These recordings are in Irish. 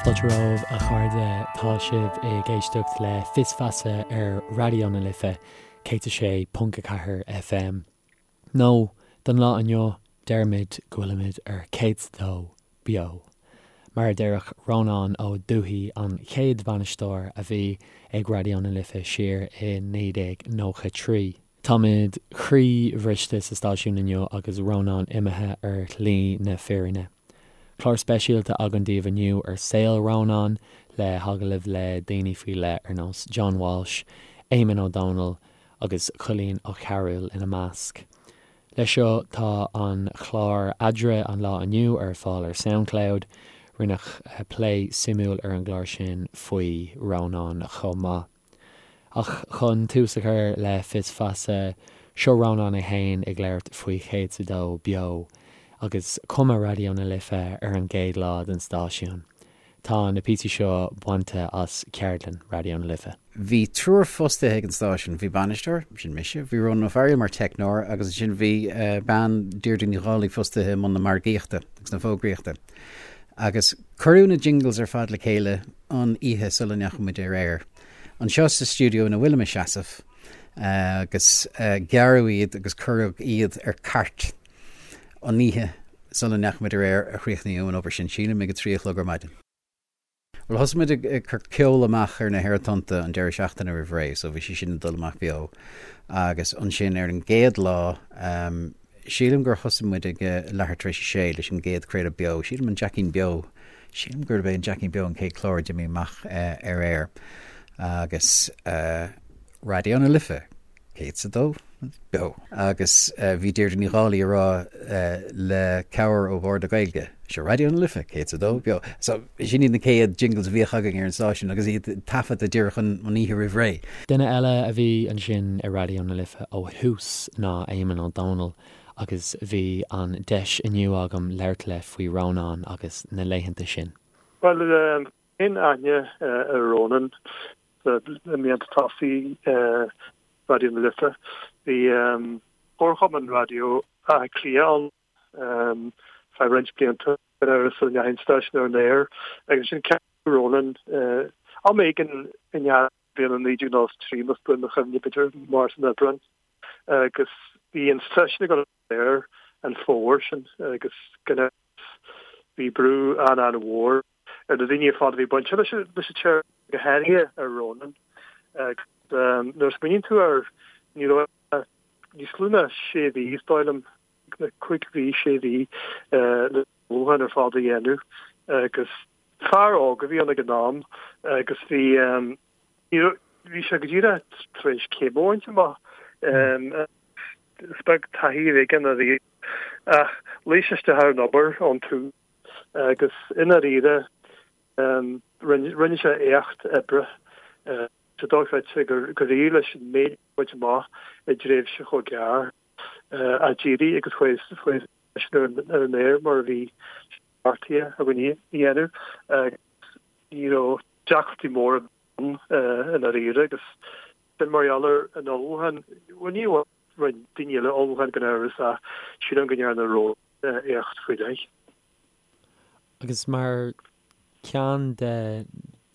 Fáilte romhaibh a chairde, tá sibh ag éisteacht le Fios Feasa ar Raidió na Life 106.4 FM. Nó, don lá inniu, deirimid go bhfuilimid ar 102 Beo. Mar a déarfadh Rónán Ó Dubhthaigh, an chéad bhainisteoir a bhí ag Raidió na Life siar i 1993. Táimid croíbhriste sa stáisiún inniu agus Rónán imithe ar shlí na fírinne. Clár speisialta againn daoibh inniu ar saol Rónáin, le hagallaimh le daoine faoi leith ar nós John Walsh, Éamonn Ó Dónaill agus Coilín Ó Cearúil ina measc. Leis seo tá an clár Eadrainn an lá inniu ar fáil ar Soundcloud. Rinneadh plé suimiúil ar an gclár sin faoi Rónán chomh maith. Ach chun tús a chur le Fios Feasa, seo Rónán é féin ag labhairt faoi 102 Beo agus cuma Raidió na Life ar an gcéad lá den stáisiún. Tá na píosaí seo bainte as ceardlann Raidió na Life. Bhí triúr fostaithe ag an stáisiún. Bhí bainisteoir, sin mise, bhí Rónán Ó Fearghaíl mar teicneoir agus ansin bhí bean, Deirdre Ní Dhálaigh, fostaithe i mbun na margaíochta agus na fógraíochta. Agus cuireadh na jingles ar fad le chéile an oíche sula ndeachaigh muid ar aer. Anseo sa stiúideo ina bhfuilim ag seasamh agus gearradh iad agus cuireadh iad ar cairt an oíche sula ndeachaigh muid ar aer a chríochnaíodh an obair sin, sílim ag a 3 a chlog ar maidin. Bhuel thosaigh muid ag cur ceol amach ar na haerthonnta an deireadh seachtaine roimh ré so bhí sé sin ag dul amach beo agus ansin ar an gcéad lá Sílim gur thosaigh muid ag leathuair tar éis a sé leis an gcéad chraoladh beo, sílim an Jeaicín Beo, sílim gurb é an Jeaicín Beo an chéad chlár a d'imigh amach ar aer agus Raidió na Life, 102 Beo. Agus bhí Deirdre Ní Dhálaigh ag rá le cabhair ó Bhord na Gaeilge, seo Raidió na Life, 102 Beo. So sin iad na chéad jingles a bhíodh againn ar an stáisiún agus iad taifeadta díreach an oíche roimh ré. Duine eile a bhí ansin i Raidió na Life ó thús ná Éamonn Ó Dónaill agus bhí an deis inniu agam labhairt leis faoi Rónán agus na laethanta sin. Bhuel, cén aithne ar Rónán i mblianta tosaigh Raidió na Life? Bhí Comharchumann Raidió Átha Cliath ann feadh roinnt blianta. ar sula ndeachaigh an stáisiún ar an aer agus ansin ceapadh Rónán am éigin i ndiaidh na bliana 1993 más buan mo chuimhne, b'fhéidir Márta nó Aibreán, agus bhí an stáisiún ag dul ar an aer an fómhar sin agus gan amhras bhí brú an-an-mhór ar na daoine ar fad a bhí bainte leis an tseirbhís, go háirithe ar Rónán. Agus nuair a smaoiníonn tú air, ní raibh níos lú ná sé mhí, is dóigh liom, 5 mhí, 6 mhí le ullmhúchán ar fad a dhéanamh agus fear óg a bhí ann ag an am agus bhí bhí sé go díreach tar éis céim a bhaint amach. Is beag taithí a bhí aige ná ach luigh sé isteach ar an obair ón tús agus i ndáiríre rinne sé éacht oibre. Tá sé dochreidte gur éirigh leis an méid a bhaint amach i dtréimhse chomh gearr. a d'éirigh agus chuaigh sé ar an aer mar a bhí beartaithe againn a dhéanamh agus ní raibh deacrachtaí móra ann i ndáiríre agus sin mar gheall ar an ullmhúchán, bhuel ní amháin rinne daoine eile ullmhúchán gan amhras ach sílim go ndearna Rónán éacht faoi leith. Agus mar ceann de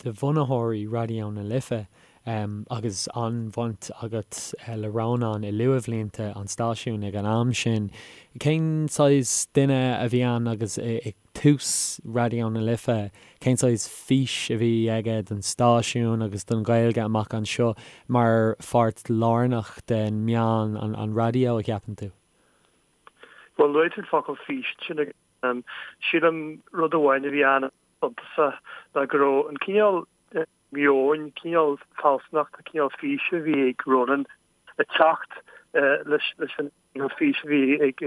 bhunaitheoirí Raidió na Life agus an-bhaint agat le Rónán i luathbhlianta an stáisiúin ag an am sin. Cén saghas duine a bhí ann agus ag tús Raidió na Life, cén saghas fís a bhí aige don stáisiún agus don Ghaeilge amach anseo mar pháirt lárnach den meán, an raidió, a cheapann tú? Bhuel, luaigh tú an focal fís ansin agus Sílim rud amháin a bhí an-suntasach ná go raibh an cineál meoin, cineál fealsúnachta, cineál físe a bhí ag Rónán ag teacht leis an gcineál físe a bhí ag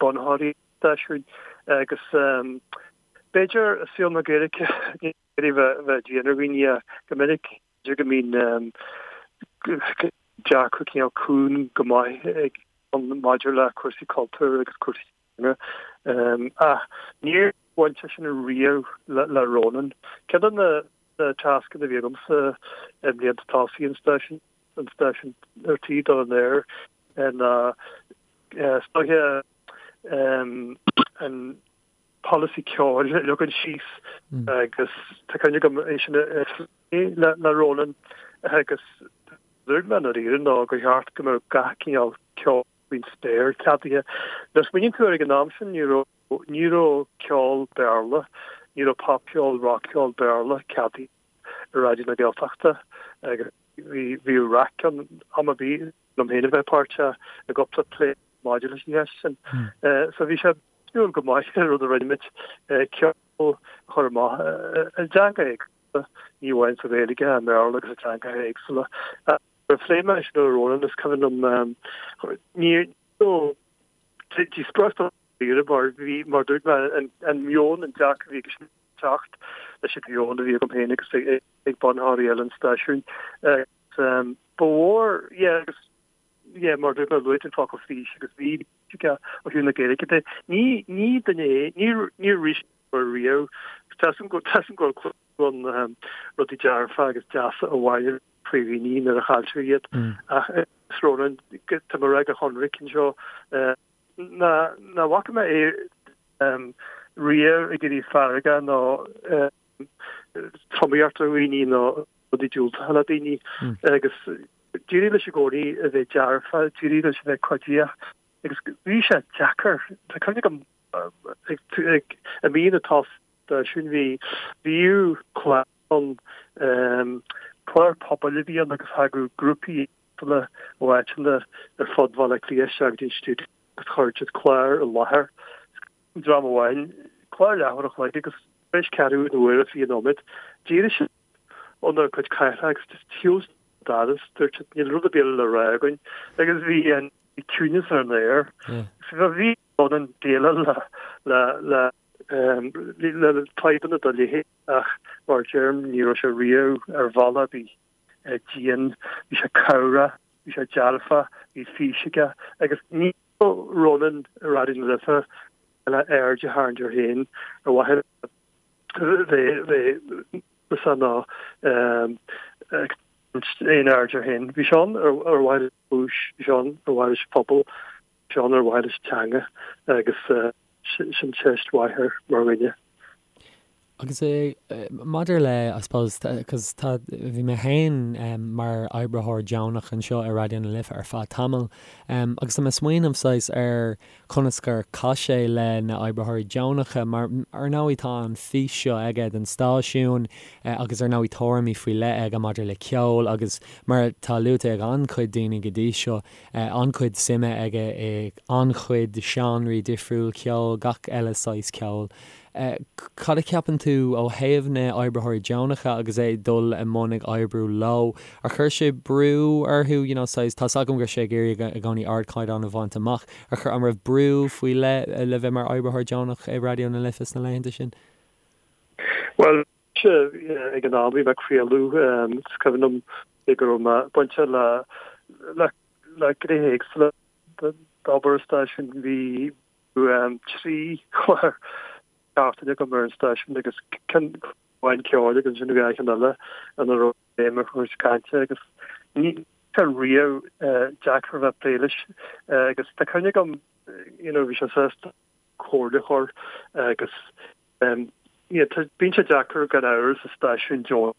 bunaitheoirí an stáisiúin agus b'fhéidir i saol na Gaeilge ní féidir bheith dian ar dhaoine ach go minic b'fhéidir go mbíonn dearcadh cineál cúng go maith ag maidir le cúrsaí cultúir agus cúrsaí teanga. Ach níor bhain sé sin riamh le Rónán. Ceann de na tascanna a bhí agamsa i mblianta tosaigh an stáisiúin, an stáisiún ar tí dul in aer, ná is dóiche an. polasaí ceoil a leagan síos agus tá cuimhne agam é sin a phlé le Ronan agus dúirt mé i ndáiríre ná gur cheart go mbeadh gach cineál ceoil faoin spéir ceadaithe. Nuair a smaoiníonn tú air ag an am sin ní raibh ní raibh ceol Béarla, ní raibh popcheol, rockcheol Béarla ceadaithe i Raidió na Gaeltachta agus bhí bhíodh raic ann am ar bith liom féin a bheith páirteach i gcúpla plé maidir leis an cheist sin. So bhí sé suimiúil go maith an rud a rinne muid, ceol a chur amach i dteanga éagsúla, ní amháin sa Ghaeilge, i mBéarla agus i dteangacha éagsúla. Nuair a phléigh mé sin le Ronan, is cuimhin liom, ní raibh díospóireacht ann dáiríre mar bhí, mar dúirt mé, an meon, an dearcadh a bhí aige ag teacht leis an mheon a bhí agam féin agus ag bunaitheoirí eile an stáisiúin. Agus ba mhór, yeah, agus yeah, mar dúirt mé, luaigh tú an focal fís agus bhí fís aige ó thaobh na Gaeilge de. Ní, ní duine é, níor, níor rith sé riamh. Tá 'fhios agam go, tá 'fhios agam go bhfuil clú ann rudaí dearfa agus deasa a bhailiú faoi dhaoine nuair a chailltear iad. Ach is Ronan, tá mé ag rá go hionraic anseo, ná, ná bhfaca mé é riamh ag éirí feargach nó tromaíocht ar dhaoine nó rudaí diúltacha le daoine agus d'éirigh leis i gcónaí a bheith dearfa, d'éirigh leis a bheith cuiditheach agus bhí sé deacair. Tá cuimhne agam ag i mí na stáisiúin bhí bhíodh clár ann, clár pobail a bhí ann agus thagadh grúpaí éagsúla ó áiteanna ar fud Bhaile Átha Cliath isteach go dtí an stiúideo agus chuir siad clár i láthair. Dream amháin, clár leathuair a chloig agus tar éis ceathrú na huaire 20 nóiméad, d'éirigh siad óna gcuid cathaoireacha agus just shiúil siad an doras, dúirt siad níl rud ar bith eile le rá againn agus bhí an ciúnas ar an aer. So bhí Ronan déileáil le le le le fadhbanna dá leithéid ach mar a deirim ní raibh sé riamh ar bhealach ar bith dian, bhí sé cabhrach, bhí sé dearfach, bhí fís aige agus ní raibh Ronan i Raidió na Life le aird a tharraingt air féin ar mhaithe le bheith núíosach ná ag tarraingt aon aird air féin. Bhí sé ann ar mhaithe leis an chúis, bhí sé ann ar mhaithe leis an phobal, bhí sé ann ar mhaithe leis an teanga agus sin teist mhaith air mar dhuine. Agus maidir le, I suppose, cos tá, bhí mé féin mar oibritheoir deonach anseo i Raidió na Life ar feadh tamaill agus tá mé ag smaoineamh saghas ar conas gur chaith sé le na oibritheoirí deonacha mar ar ndóigh tá an fís seo aige don stáisiún agus ar ndóigh tuairimí faoi leith aige maidir le ceol agus mar atá luaite ag an-chuid daoine go dtí seo an-chuid suime aige i an-chuid seánraí difriúil ceoil, gach eile saghas ceoil. Cad a cheapann tú ó thaobh na oibritheoirí deonacha agus é ag dul i mbun ag oibriú leo? Ar chuir sé brú orthu, you know, saghas, tá's agam go raibh sé ag iarraidh i gcónaí ardchaighdeán a bhaint amach, ar chuir, an raibh brú faoi leith le bheith mar oibritheoir deonach i Raidió na Life sna laethanta sin? Bhuel, ag an am bhí mé ag craoladh, is cuimhin liom go raibh mé bainte le, le, le gnéithe éagsúla d'obair an stáisiúin, bhí 3 chlár seachtaine agam ar an stáisiún agus ceann amháin ceoil agus ansin dhá cheann eile ina raibh béim ar chúrsaí cainte agus ní sé riamh deacair a bheith ag plé leis agus tá cuimhne agam you know bhí sé sásta comhairle a chur agus yeah bíonn sé deacair gan amhras sa stáisiún deonach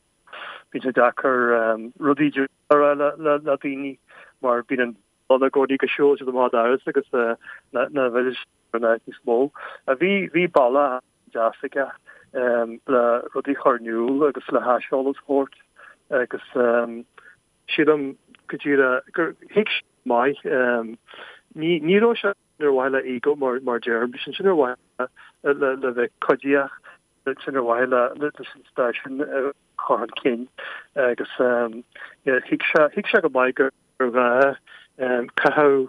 bíonn sé deacair rudaí a rá le daoine mar bíonn an ann i gcónaí go siúlfaidh siad amach an doras agus nach bhfillfidh siad ar an áit níos mó. Bhí bhí bealach deas aige le rudaí a chur in iúl agus le haiseolas a thabhairt agus sílim go díreach gur thuig sé go maith ní ní raibh sé ar mhaithe le ego mar mar deirim, bhí sé ansin ar mhaithe le le bheith cuiditheach, sin ar mhaithe le leis an stáisiún a chur chun cinn agus thuig sé thuig sé go maith gur gur ghá caitheamh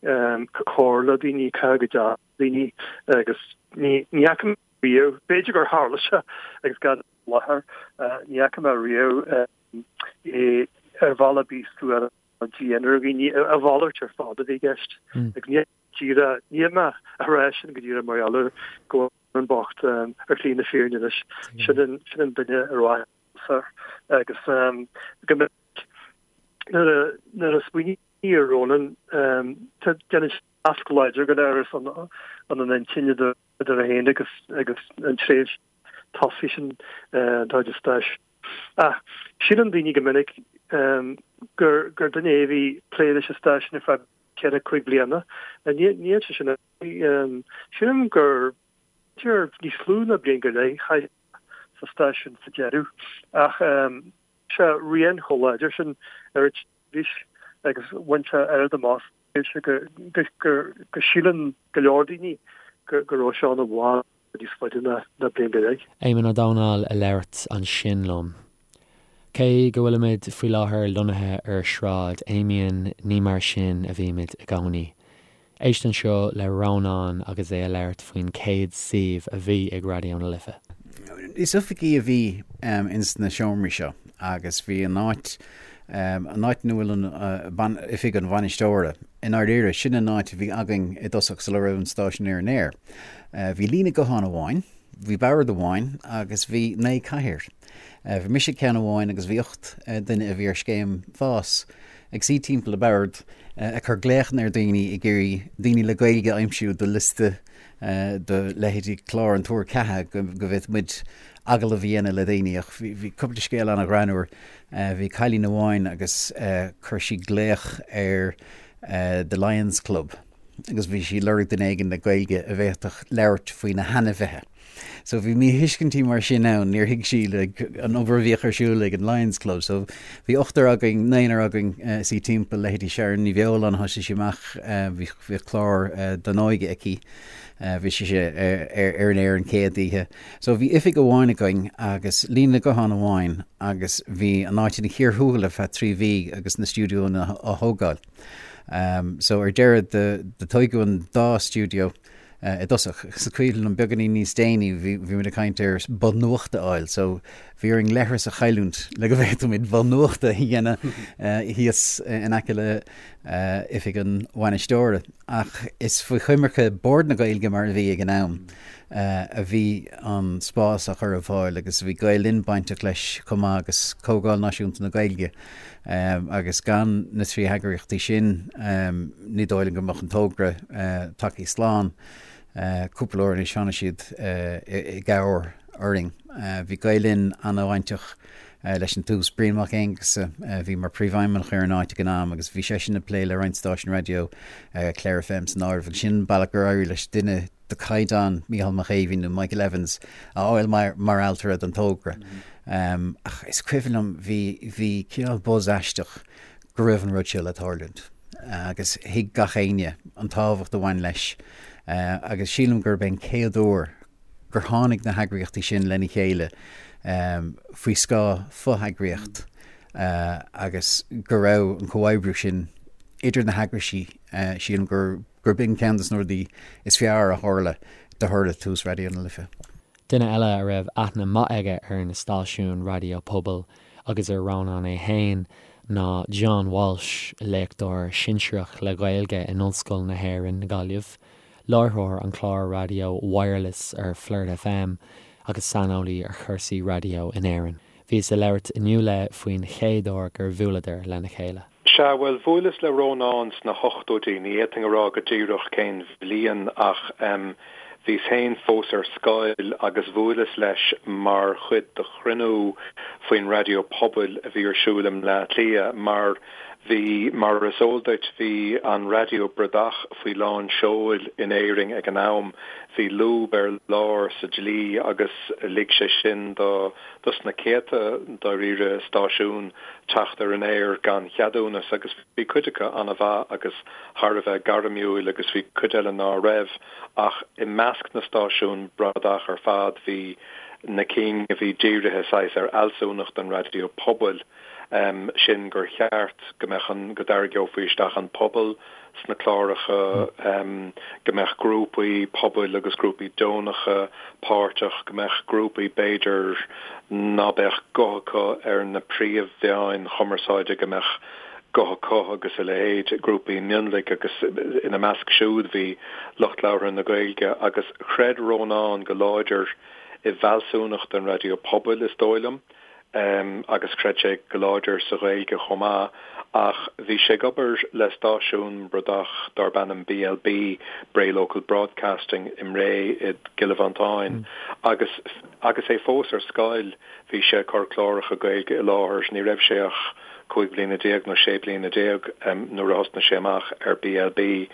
go cóir le daoine, caitheamh go deas le daoine agus ní fhaca mé riamh, b'fhéidir gur tharla sé agus gan i láthair, ní fhaca mé riamh é ar bhealach ar bith suarach nó dian ar dhaoine, a mhalairt ar fad a bhí i gceist. Agus ní díreach, níl mé a rá sin go díreach mar gheall ar go bhfuil an bocht ar shlí na fírinne anois. Sin an duine ar mhaith agus go minic nuair a smaoiním. Ar Rónán, déanann sé nasc láidir go léir san an intinn idir é féin agus agus an tréimhse tosaigh sin dá chuid stáisiún. Ach síleann daoine go minic gur gur duine é a bhí ag plé leis an stáisiún ar feadh 4, 5 bliana. Níl sé sin. Sílim gur b'fhéidir níos lú ná bliain go leith a chaith sé sa stáisiún sa deireadh ach sé rian chomh láidir sin ar an tseirbhís agus bhain sé oiread amach sa tréimhse go síleann go leor daoine go raibh sé ann i bhfad níos faide ná bliain go leith. Éamonn Ó Domhnaill a labhairt ansin liom. Cé go bhfuilimid faoi láthair lonnaithe ar Shráid Amiens, ní mar sin a bhímid i gcónaí. Éist anseo le Rónán agus é a labhairt faoin chéad suíomh a bhí ag Raidió na Life. Is oifigí a bhí ins na seomraí seo agus bhí an áit, an áit ina bhfuil an, oifig an bhainisteora, i ndáiríre, sin an áit a bhí againn i dtosach sula raibh an stáisiún ar an aer. Bhí líne gutháin amháin, bhí bord amháin agus bhí 9 cathaoir. Bhí mise ag ceann amháin agus bhí 8 duine a bhí ar scéim fás ag suí timpeall an bhoird ag cur glaochanna ar dhaoine ag iarraidh daoine le Gaeilge a aimsiú do liosta do leithéidí clár an Tuar Ceatha go bhféadfadh muid agallamh a dhéanamh le daoine ach bhí cúpla scéal an-ghreannmhar. Bhí cailín amháin agus chuir sí glaoch ar The Lions Club agus bhí sí ag lorg duine éigin le Gaeilge a bhféadfadh labhairt faoi na hainmhithe. So bhí míthuiscintí mar sin ann, níor thuig sí like, an obair a bhíodh ar siúl ag an Lions Club. So bhí ochtar againn, naonúr againn uh, suí timpeall leithéidí Sharon Ní Bheoláin thosaigh sí amach uh, bhí, bhí clár uh, don óige aici. Uh, bhí sí ar, ar, ar an aer an chéad oíche. So bhí oifig amháin againn agus líne guthán amháin agus bhí an áit ina chíor thuathail ar feadh 3 mhí agus na stiúideonna á thógáil. Um, so ar deireadh do, do tógadh an dá stiúideo i dtosach. Is cuimhin liom beagáinín níos déanaí bhí bhí muid ag caint ar both nuachta a fháil so bhí orainn leithreas a chailliúint le go bhféadfadh muid both nuachta a dhéanamh thíos in aice le oifig an bhainisteora. Ach is faoi choimirce Bord na Gaeilge mar a bhí ag an am a bhí an spás á chur ar fáil agus bhí Gael Linn bainteach leis chomh maith agus Comhdháil Náisiúnta na Gaeilge agus gan na 3 heagraíochtaí sin ní dóigh liom go mbeadh an togra tagtha slán. Cúpla uair anois tháinig siad i gcabhair orainn. Bhí Gael Linn an-bhainteach leis an tús. Brian Mac Aonghusa a bhí mar phríomhfheidhmeannach ar an áit ag an am agus bhí seisean ag plé le roinnt stáisiún raidió, Clare FM san áireamh agus sin an bealach gur éirigh leis duine de chaighdeán Mícheál Mac Aoibhinn nó Michael Evans a fháil mar ailtire don togra. Ach is cuimhin liom bhí bhí cineál buzz aisteach go raibh an rud seo le tarlúint agus thuig gach éinne an tábhacht a bhain leis agus sílim gurb é an chéad uair gur tháinig na heagraíochtaí sin lena chéile faoi scáth fo-eagraíocht agus go raibh an comhoibriú sin idir na heagraisí, sílim gur gurb in ceann de na rudaí is fearr a tharla de thoradh tús Raidió na Life. Duine eile a raibh aithne maith aige ar na stáisiúin raidió pobail agus ar Rónán é féin ná John Walsh, léachtóir sinsearach le Gaeilge in Ollscoil na hÉireann, Gaillimh, láithreoir an chláir raidió Wireless ar Flirt FM agus saineolaí ar chúrsaí raidió in Éirinn. Bhíos ag labhairt inniu leis faoin chéad uair gur bhuaileadar lena chéile. Sea, bhuel, bhuaileas le Rónán sna hochtóidí, ní fhéadfainn a rá go díreach cén bhliain ach em bhíos féin fós ar scoil agus bhuaileas leis mar chuid de chruinniú faoin raidió pobail a bhí ar siúl i mBleá Cliath mar bhí, mar is eol duit, bhí an raidió bradach faoi lán seoil in Éirinn ag an am, bhí lúb ar lár sa dlí agus lig sé sin do dos na céadta, dáiríre, stáisiún teacht ar an aer gan cheadúnas agus bhí cuid acu an-mhaith agus thar a bheith gairmiúil agus bhí cuid eile ná raibh ach i measc na stáisiún bradach ar fad bhí na cinn a bhí dírithe saghas ar fhealsúnacht an raidió pobail, sin gur cheart go mbeadh an, go dtarraingeofaí isteach an pobal sna cláracha, go mbeadh grúpaí pobail agus grúpaí deonacha páirteach, go mbeadh grúpaí b'fhéidir ná beadh guth acu ar na príomh-mheáin chumarsáide, go mbeadh guth acu agus a leithéid, grúpaí mionlaigh agus ina measc siúd bhí lucht labhartha na Gaeilge agus chreid Rónán go láidir i bhfealsúnacht an raidió pobail, is dóigh liom. Agus chreid sé go láidir sa Ghaeilge chomh maith. Ach bhí sé ag obair le stáisiún bradach darb ainm BLB, Bray Local Broadcasting, i mBré i gCill Mhantáin. Agus agus é fós ar scoil bhí sé ag cur cláracha Gaeilge i láthair. Ní raibh sé ach 15 bliana nó 16 bliana nuair a thosnaigh sé amach ar BLB.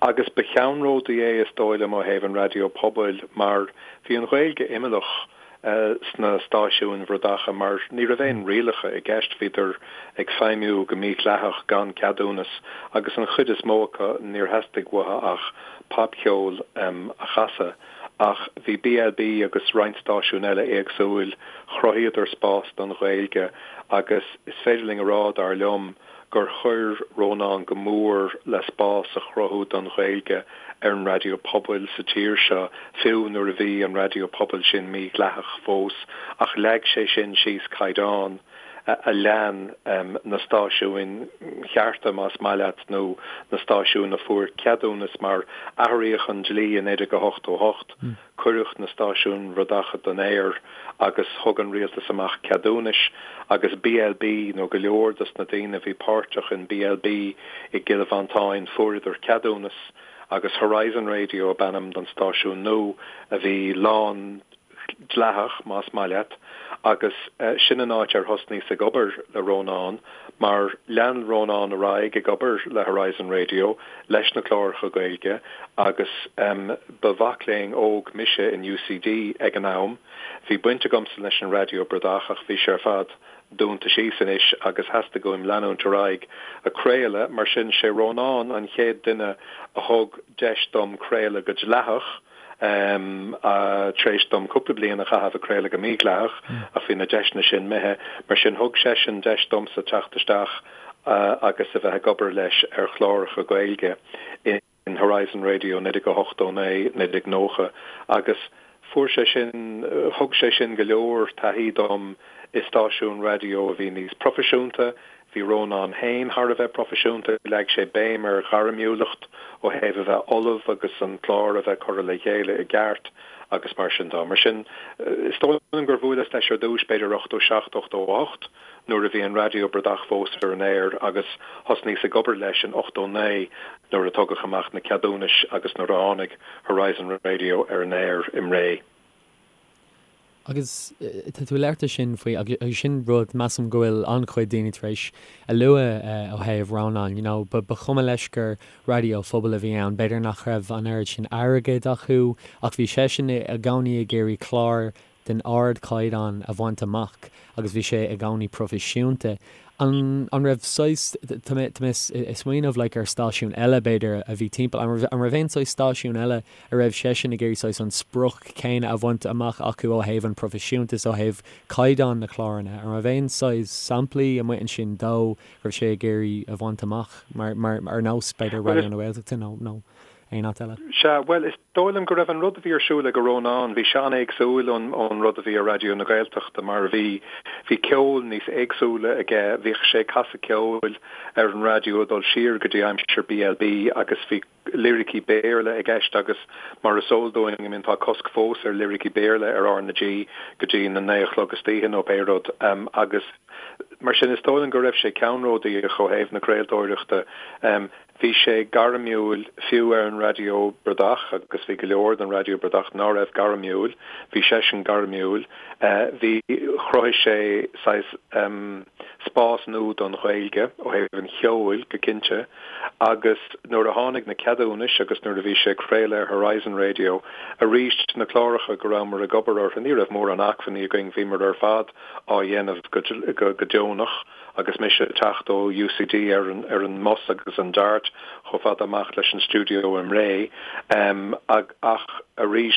Agus ba cheannródaí é is dóigh liom ó thaobh an raidió pobail mar bhí an Ghaeilge imeallach sna stáisiúin bhradacha mar ní raibh aon rialacha i gceist, bhíodar ag feidhmiú go mídhleathach gan ceadúnas agus an chuid is mó acu níor theastaigh uathu ach popcheol a chasadh. Ach bhí BLB agus roinnt stáisiún eile éagsúil, chruthaíodar spás don Ghaeilge agus is féidir linn a rá, dar liom, gur chuir Rónán go mór le spás a chruthú don Ghaeilge ar an raidió pobail sa tír seo, fiú nuair a bhí an raidió pobail sin mídhleathach fós, ach leag sé sin síos caighdeán a lean na stáisiúin chearta, más maith leat, nó na stáisiúin a fuair ceadúnas, mar athraíodh an dlí i 1988. Cuireadh na stáisiúin bhradacha den aer agus thug an rialtas amach ceadúnais agus BLB, nó go leor dos na daoine a bhí páirteach in BLB i gCill Mhantáin, fuaireadar ceadúnas agus Horizon Radio ab ainm don stáisiún nua a bhí lán dleathach, más maith leat, agus sin an áit ar thosnaíos ag obair le Rónán mar lean Rónán ar aghaidh ag obair le Horizon Radio leis na cláracha Gaeilge agus ba mhac léinn óg mise in UCD ag an am. Bhí baint agamsa leis an raidió bradach ach bhí sé ar fad dúnta síos anois agus theastaigh uaim leanúint ar aghaidh ag craoladh, mar sin sé Rónán an chéad duine a thug deis dom craoladh go dleathach. Tar éis dom cúpla bliain a chaitheamh ag craoladh go mídhleathach, ach bhí na deiseanna sin imithe, mar sin thug seisean deis domsa teacht isteach agus a bheith ag obair leis ar chláracha Gaeilge in Horizon Radio 1989, 1990 agus fuair sé sin, thug sé sin go leor taithí dom i stáisiún raidió a bhí níos proifisiúnta, Bhí Rónán féin thar a bheith proifisiúnta, leag sé béim ar ghairmiúlacht ó thaobh a bheith ullamh agus an clár a bheith curtha le chéile i gceart agus mar sin de. Mar sin, is dóigh liom gur bhuaileas leis ar dtús b'fhéidir 87, 88 nuair a bhí an raidió bradach fós ar an aer agus thosnaíos ag obair leis in 89 nuair a tugadh amach na ceadúnais agus nuair a tháinig Horizon Radio ar an aer i mBré. Agus tá tú ag labhairt ansin faoi, agus sin rud, measaim go bhfuil an-chuid daoine tar éis a lua ó thaobh Rónán, you know, ba chuma leis gur raidió phobail a bhí ann, b'fhéidir nach raibh an oiread sin airgid acu ach bhí seisean i gcónaí ag iarraidh clár den ardchaighdeán a bhaint amach agus bhí sé i gcónaí proifisiúnta. An an raibh saghas, tá mé tá mé ag smaoineamh like ar stáisiún eile b'fhéidir a bhí timpeall, an raibh an raibh aon saghas stáisiún eile a raibh seisean ag iarraidh saghas an sprioc céanna a bhaint amach acu ó thaobh an proifisiúntas, ó thaobh caighdeán na cláranna? An raibh aon saghas samplaí amuigh ansin dó go raibh sé ag iarraidh a bhaint amach mar mar ar nós b'fhéidir Raidió na Gaeltachta nó nó aon áit eile? Sea, bhuel, is dóigh liom go raibh an rud a bhí ar siúl ag Rónán, bhí sé an-éagsúil ón ón rud a bhí ar Raidió na Gaeltachta mar bhí bhí ceol níos éagsúla aige, bhíodh sé ag casadh ceoil ar an raidió ag dul siar go dtí aimsir BLB agus bhí liricí Béarla i gceist agus mar is eol dúinn, I mean tá cosc fós ar liricí Béarla ar R na G go dtí na naoi a chlog istoíche nó pé rud agus mar sin is dóigh liom go raibh sé ceannródaíoch ó thaobh na craoltóireachta. Bhí sé gairmiúil fiú ar an raidió bradach agus bhí go leor den raidió bradach ná raibh gairmiúil, bhí seisean gairmiúil. Bhí, chruthaigh sé saghas spás nua don Ghaeilge ó thaobh an cheoil go cinnte agus nuair a tháinig na ceadúnais agus nuair a bhí sé ag craoladh ar Horizon Radio arís na cláracha go rabhamar ag obair orthu ní raibh mórán acmhainní againn, bhíomar ar fad á dhéanamh go go deonach. Agus mise ag teacht ó UCD ar an ar an mbus agus an Dart chomh fada amach leis an stiúideo i mBré. Ach arís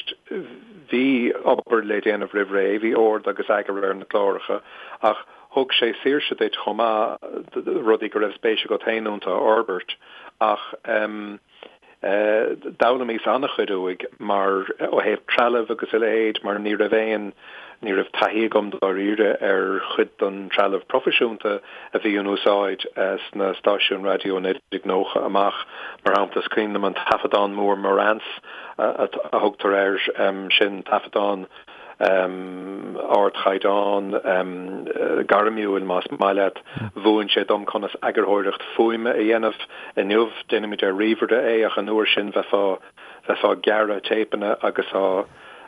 bhí obair le déanamh roimh ré, bhí ord agus eagar ar na cláracha ach thug sé saoirse duit chomh maith rudaí go raibh spéis agat féin iontu a fhorbairt. Ach. D'fhoghlaimíos an-chuid uaidh mar, ó thaobh trealaimh agus a leithéid, mar ní raibh aon, ní raibh taithí agam dáiríre ar chuid den trealamh proifisiúnta a bhí in úsáid sna stáisiúin raidió i 1990 amach. Mar shampla, is cuimhin liom an taifeadán mór Marantz a thugtar air sin, taifeadán. Ardchaighdeán gairmiúil, más maith leat. Mhúin sé dom conas eagarthóireacht fuaime a dhéanamh. Inniu, déanaimid ar ríomhaire é, ach an uair sin bheifeá bheifeá ag gearradh téipeanna agus á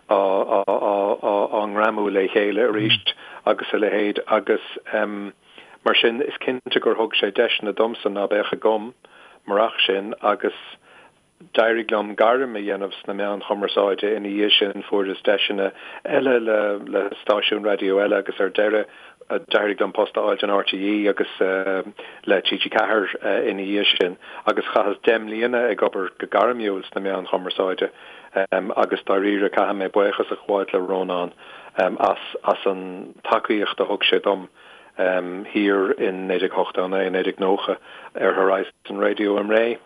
á á á á ngreamú le chéile arís agus a leithéid agus mar sin is cinnte gur thug sé deiseanna domsa ná beadh agam murach sin agus D'éirigh liom gairm a dhéanamh sna meáin chumarsáide ina dhiaidh sin, fuaireas deiseanna eile le le stáisiúin raidió eile agus ar deireadh d'éirigh liom post a fháilt in RTÉ agus le TG4 ina dhiaidh sin agus chaitheas 10 mbliana ag obair go gairmiúil sna meáin chumarsáide agus dáiríre caithfidh mé buíochas a ghabháilt le Rónán as as an tacaíocht a thug sé dom thiar in 1989, 1990 ar Horizon Radio i mBré.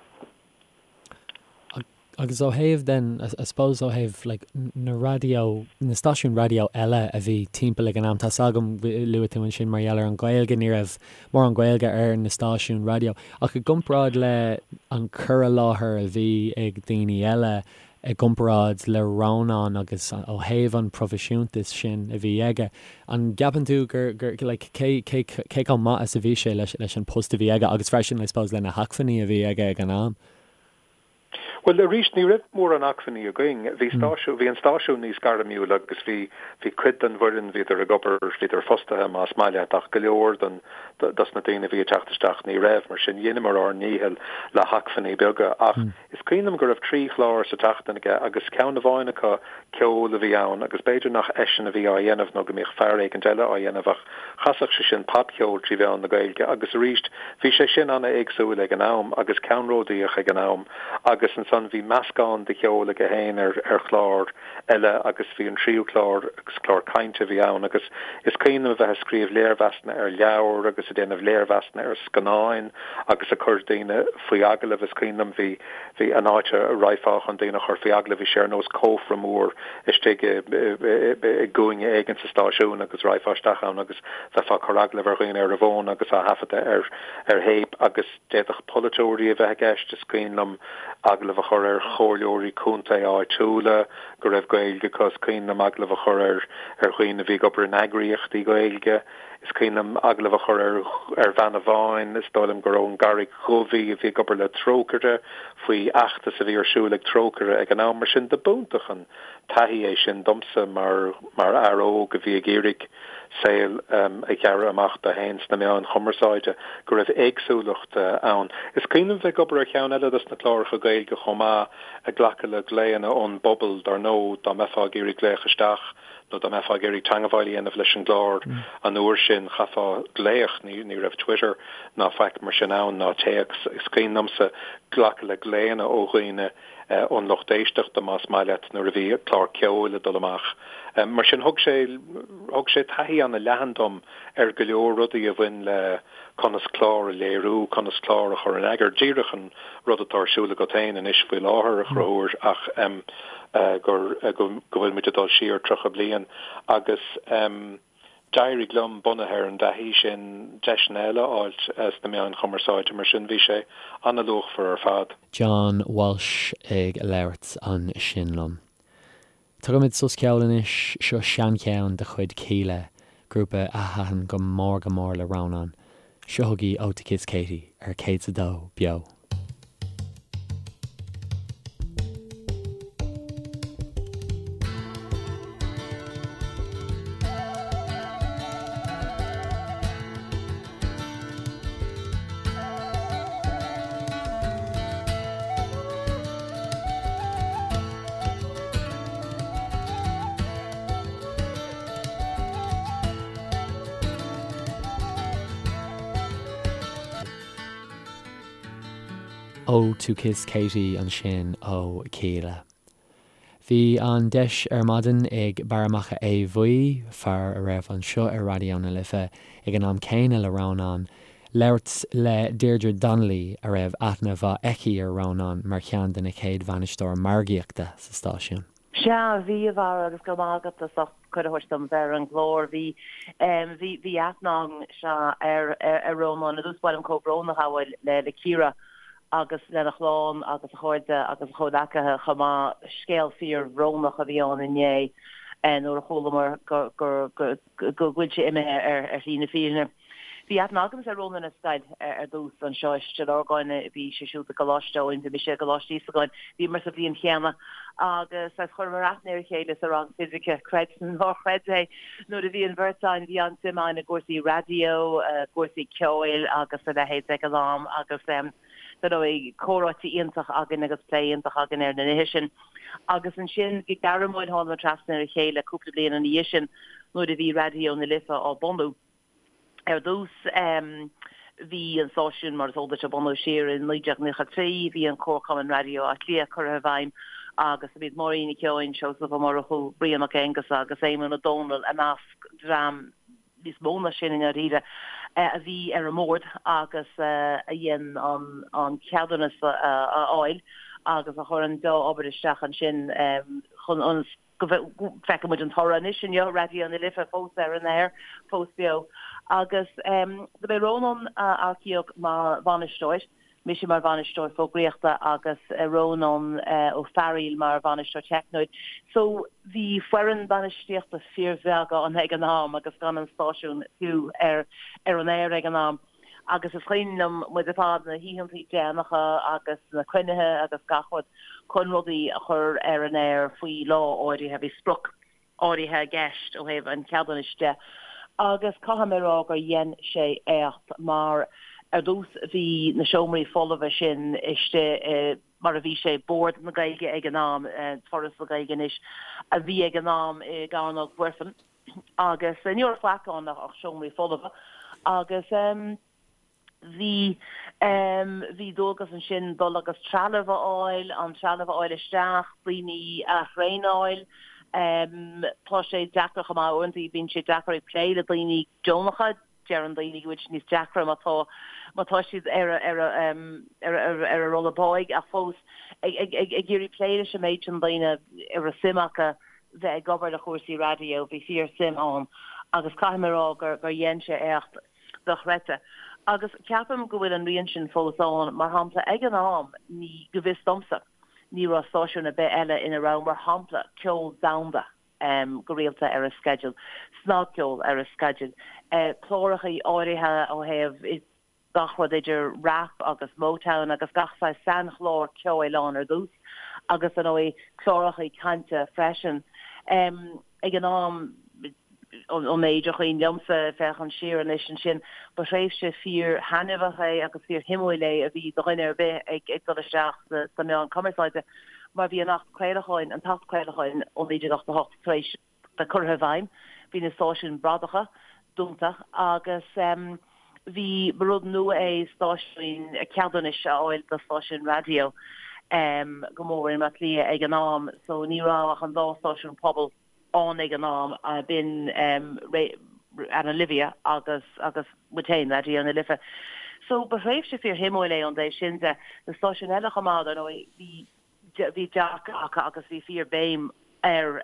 Agus ó thaobh then, I suppose ó thaobh like na raidió, na stáisiúin raidió eile a bhí timpeall ag an am, tá's agam, luaigh tú ansin mar gheall ar an Ghaeilge, ní raibh mórán Gaeilge ar na stáisiúin raidió, ach i gcomparáid le an cur i láthair a bhí ag daoine eile, i gcomparáid le Rónán agus ó thaobh an proifisiúntas sin a bhí aige, an gceapann tú gur, gur, like, cé, cé, cé chomh maith is a bhí sé leis, leis an post a bhí aige agus freisin, I suppose, le na hacmhainní a bhí aige ag an am? Bhuel, arís, ní raibh mórán acmhainní againn. Bhí stáisiún, bhí an stáisiún níos gairmiúla agus bhí, bhí cuid den bhfoireann, bhíodar ag obair, bhíodar fostaithe, más maith leat, ach go leor den, dos na daoine a bhí ag teacht isteach ní raibh. Mar sin, dheineamar ár ndícheall le hacmhainní beaga. Ach Is cuimhin liom go raibh 3 chlár sa tseachtain aige agus ceann amháin acu ceol a bhí ann agus b'fhéidir nach eisean a bhí á dhéanamh nó go mbíodh fear éigint eile á dhéanamh ach chasadh sé sin popcheol trí mheán na Gaeilge agus arís bhí sé sin ana-éagsúil ag an am agus ceannródaíoch ag an am agus ansan bhí meascán de cheol aige féin ar ar chlár eile agus bhí an tríú clár agus clár cainte a bhí ann agus is cuimhin liom a bheith ag scríobh léirmheasanna ar leabhair agus ag déanamh léirmheasanna ar scannáin agus ag cur daoine faoi agallamh. Is cuimhin liom bhí, bhí an áit a raghfá chun daoine a chur faoi agallamh, bhí sé ar nós cófra mór istigh i, i gcúinne éigin sa stáisiún agus raghfá isteach ann agus bheifeá ag cur agallamh ar dhaoine ar an bhfón agus á thaifeadadh ar, ar théip agus d'fhéadfadh polaiteoirí a bheith i gceist. Is cuimhin liom agallamh a chur ar chomhairleoirí contae áitiúla go raibh Gaeilge acu. Is cuimhin liom agallamh a chur ar ar dhaoine a bhí ag obair in eagraíochtaí Gaeilge. Is cuimhin liom agallamh a chur ar ar bhean amháin, is dóigh liom gur ón gCarraig Dhubh í, a bhí ag obair le Trócaire, faoi fheachtas a bhí ar siúl ag Trócaire ag an am. Mar sin de b'iontach an taithí é sin domsa mar mar fhear óg a bhí ag iarraidh saol a ghearradh amach dó féin sna meáin chumarsáide, go raibh éagsúlacht ann. Is cuimhin liom bheith ag obair ar cheann eile dos na cláracha Gaeilge chomh maith, ag glacadh le glaonna ón bpobal, dar ndóigh, dá mbeifeá ag iarraidh glaoch isteach nó dá mbeifeá ag iarraidh teangmháil a dhéanamh leis an gclár an uair sin, chaithfeá glaoch, ní raibh Twitter ná faic mar sin ann, ná téacs. Is cuimhin liomsa glacadh le glaonna ó dhaoine ón lucht éisteachta, más maith leat, nuair a bhí clár ceoil ag dul amach. Mar sin, thug sé, thug sé taithí ana-leathan dom ar go leor rudaí a bhain le conas clár a léiriú, conas clár a chur in eagar, díreach an rud atá ar siúl agat féin anois faoi láthair, a Chonchúir, ach gur, go bhfuil muid ag dul siar 30 bliain agus. D'éirigh liom, bunaithe ar an dtaithí sin, deiseanna eile a fháilt sna meáin chumarsáide, mar sin bhí sé an-luachmhar ar fad. John Walsh ag labhairt ansin liom. Tógfaimid sos ceoil anois, seo seancheann de chuid Kíla, grúpa a thaitin go mór go mór le Rónán. Seo chugaibh Oh To Kiss Katie ar 102 Beo. Oh To Kiss Katie ansin ó Kíla. Bhí an deis ar maidin ag Barra Mac Aodha Bhuí, fear a raibh anseo ar Raidió na Life ag an am céanna le Rónán, labhairt le Deirdre Donnelly a raibh aithne mhaith aici ar Rónán mar cheann de na chéad bhainisteoir margaíochta sa stáisiún. Sea, bhí, a Bharra, agus go raibh maith agat as ucht cuireadh a thabhairt dom bheith ar an gclár. Bhí, bhí, bhí aithne agam, sea, ar, ar Rónán. Ar dtús ba mhaith liom comhbhrón a ghabháil le, le Ciara agus lena chlann agus a chairde agus a chomhleacaithe chomh maith. Scéal fíor-bhrónach a bhí ann inné. nuair a chualamar go go bhfuil sé imithe ar shlí na fírinne. Bhí aithne agamsa ar Rónán ar scoil ar dtús anseo i Stigh Lorgáin, bhí sé siúd i gColáiste Eoin, bhí mise i gColáiste Íosagáin, bhíomar sa bhliain chéanna agus saghas chuireamar aithne ar a chéile sa rang fisice, creid nó ná creid é, nuair a bhí an bheirt againn, bhí an-suim againn i gcúrsaí raidió, cúrsaí ceoil agus a leithéid ag an am agus dar ndóigh comhráite iontach againn agus plé iontach againn ar na nithe sin. Agus ansin go gairmiúil thánamar trasna ar a chéile cúpla bliain ina dhiaidh sin nuair a bhí Raidió na Life á bunú. Ar dtús bhí an stáisiún, mar is eol duit, á bunú siar i 1993. Bhí an Comharchumann Raidió Átha Cliath curtha i bhfeidhm agus ba iad Máirín Nic Eoin, Seosamh Ó Murchú, Brian Mac Aonghusa agus Éamonn Ó Dónaill i measc dream níos mó ná sin i ndáiríre, a bhí ar an mbord agus a dhein an ceadúnas a fháil agus a chuir an dea-obair isteach ansin chun ionas go bhfeiceann muid an toradh anois inniu, Raidió na Life fós ar an aer, fós beo. Agus do b'é Rónán a earcaíodh mar bhainisteoir, mise mar bhainisteoir fógraíochta agus Rónán Ó Fearghaíl mar bhainisteoir teicniúil. So bhí foireann bainistíochta fíorbheag ann ag an am agus gan an stáisiún fiú ar an aer ag an am. Agus is cuimhin liom muid ar fad, na hoícheantaí déanacha agus na cruinnithe agus gach rud chun rudaí a chur ar an aer faoi lá áirithe. Bhí sprioc áirithe i gceist ó thaobh an cheadúnais de agus caithfidh mé a rá gur dhein sé éacht mar ar dtús bhí na seomraí folmha sin istigh i mar a bhí sé, Bord na Gaeilge ag an am, Foras na Gaeilge anois, a bhí ag an am i gCearnóg Mhuirfean agus ní raibh faic ann ach seomraí folmha agus bhí bhí dualgas ansin dul agus trealamh a fháil, an trealamh a fháil isteach, daoine a thraenáil. Tá sé deacair chomh maith uaireanta, bíonn sé deacair ag plé le daoine deonacha, deireann daoine go bhfuil sé níos deacra má tá má tá siad ar a ar a ar a ar a rolla báidh ach fós ag ag ag ag iarraidh plé leis an méid sin daoine a raibh suim acu bheith ag obair le chúrsaí raidió, bhí fíor suim ann agus caithfidh mé a rá gur gur dhein sé éacht dochreidte. Agus ceapaim go bhfuil an rian sin fós ann, mar shampla ag an am ní, go bhfios domsa, ní raibh stáisiún ar bith eile ina raibh, mar shampla, ceol domhanda go rialta ar a sceideal, snagcheol ar a sceideal, clárachaí áirithe ó thaobh gach rud idir rap agus Motown agus gach saghas sainchlár ceoil ann ar dtús agus ar ndóigh clárachaí cainte freisin. Ag an am, ón méid a chuimhin liomsa, féachaint siar anois ansin, ba thréimhse fíor-thaitneamhach é agus fíor-shuimiúil é a bhí do dhuine ar bith ag dul isteach sna meáin cumarsáide mar bhí an Acht Craolacháin, an tAcht Craolacháin ó 1988 tar éis bheith curtha i bhfeidhm, bhí na stáisiúin bradacha dúnta agus bhí, ba rud nua é stáisiúin, ceadúnais a fháil do stáisiúin raidió go mór i mBaile Átha Cliath ag an am so ní raibh ach an dá stáisiún pobail ann ag an am, b'in Ana Livia agus agus muid féin, Raidió na Life. So ba thréimhse fíor-shuimiúil é ón dtaobh sin de. Na stáisiúin eile chomh maith, dar ndóigh, bhí bhí dearcadh acu agus bhí fíor béim ar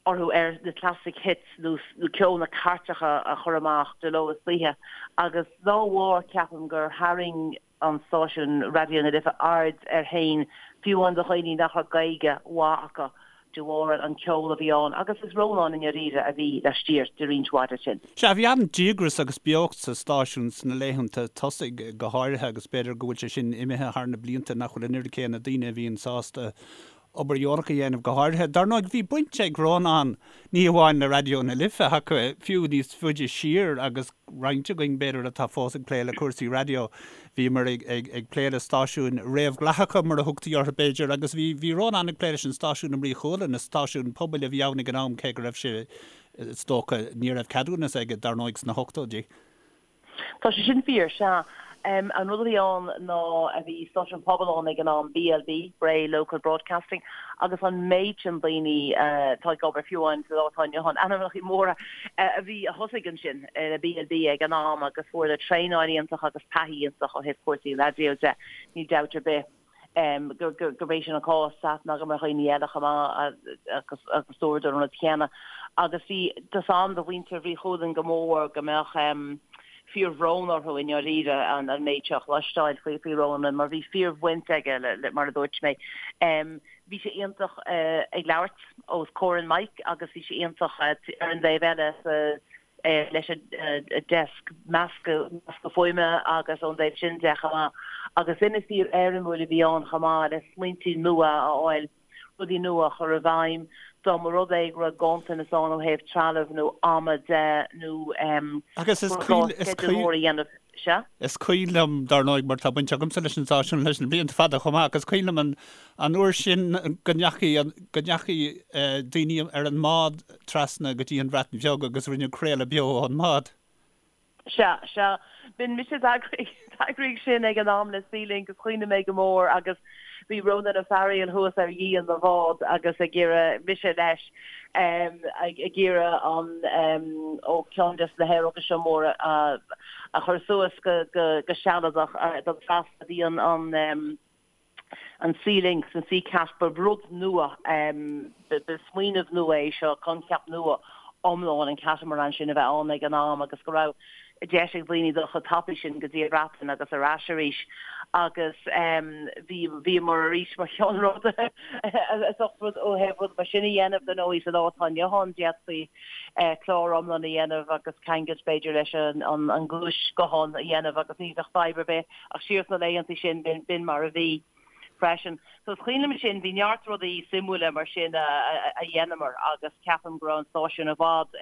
orthu ar na classic hits nó ceol na cairteacha a chur amach de ló is d'oíche agus dá bharr ceapaim gur tharraing an stáisiún Raidió na Life aird air féin fiú amháin do dhaoine nach raibh Gaeilge mhaith acu de bharr an ceol a bhí ann agus is Rónán i ndáiríre a bhí laistiar de roinnt mhaith de sin. Sea, bhí an-díograis agus beocht sa stáisiún sna laethanta tosaigh go háirithe agus b'fhéidir go bhfuil sé sin imithe thar na blianta, nach bhfuil an oiread céanna daoine a bhíonn sásta obair dheonach a dhéanamh go háirithe. Dar ndóigh, bhí baint ag Rónán ní hamháin le Raidió na Life ach fiú níos faide siar agus roinnt againn, b'fhéidir, atá fós ag plé le cúrsaí raidió, bhíomar ag plé le stáisiúin réamhdhleathacha, mar a thugtaí orthu, b'fhéidir, agus bhí bhí Rónán ag plé leis an stáisiún i mBrí Chualann, is stáisiún pobail a bhí ann ag an am, cé go raibh sé, is dócha, ní raibh ceadúnas aige, dar ndóigh, sna hochtóidí. Tá sé sin fíor, sea. An rud a bhí ann ná bhí stáisiún pobail ann ag an am, BLB, Bray Local Broadcasting, agus an méid sin daoine atá ag obair fiú amháin sa lá atá inniu ann, ainmneacha móra a bhí, a thosaigh ansin le BLB ag an am agus fuaireadar traenáil iontach agus taithí iontach ó thaobh cúrsaí raidió de, níl dabht ar bith gurb é sin an cás, tá aithne agam ar dhaoine eile chomh maith agus agus dúradar an rud céanna. Agus bhí, tá a fhios agam do mhuintir Bhrí Chualann go mór go mbeadh. Fíorbhrón orthu i ndáiríre an méid seo a chloisteáil faoi faoi Rónán mar bhí fíorbhaint aige le mar a dúirt mé. Bhí sé iontach ag labhairt os comhair an mic agus bhí sé iontach ar an dtaobh eile sa leis an deasc meascadh meascadh fuaime agus ón dtaobh sin de chomh maith. Agus duine fíor-éirimiúil a bhí ann chomh maith le smaointí nua a fháil. rudaí nua a chur i bhfeidhm, dá mba rud é go raibh ganntanas ann ó thaobh trealaimh nó ama de nó Agus is go raibh gá sceideal mór a dhéanamh. Sea? Is cuimhin liom, dar ndóigh, mar tá baint agamsa leis an stáisiún leis na blianta fada chomh maith, agus is cuimhin liom an an uair sin go ndeachaigh go ndeachaigh daoine ar an mbád trasna go dtí an Bhreatain Bheag agus rinneadh craoladh beo ón mbád. Sea, sea. B'in mise a d'eagraigh sin ag an am le Sealink is cuimhin liom é go mór agus bhí Rónán Ó Fearghaíl thuas ar dhíon na bhád agus ag iarraidh, mise leis, ag iarraidh an, ó ceann des na haeróga seo móra a chur suas go sealadach don trasna. Bhí an, an. an Sealink, an Seacat, ba rud nua, ba smaoineamh nua é seo, coincheap nua iomlán an catamaran sin a bheith ann ag an am agus go raibh deis ag daoine dul chomh tapaidh sin go dtí an Bhreatain agus ar ais arís agus bhí, bhíomar arís mar cheannródaithe as ucht rud ó thaobh rud mar sin a dhéanamh, dar ndóigh sa lá atá inniu ann d'fhéadfaí clár iomlán a dhéanamh agus ceangailt b'fhéidir leis an gluaisghuthán a dhéanamh agus ní bheadh fadhb ar bith. Ach siar sna laethanta sin, b'in mar a bhí freisin. So is cuimhin liom sin, bhí neart rudaí suimiúla mar sin a dheineamar agus ceapaim go raibh an stáisiún i bhfad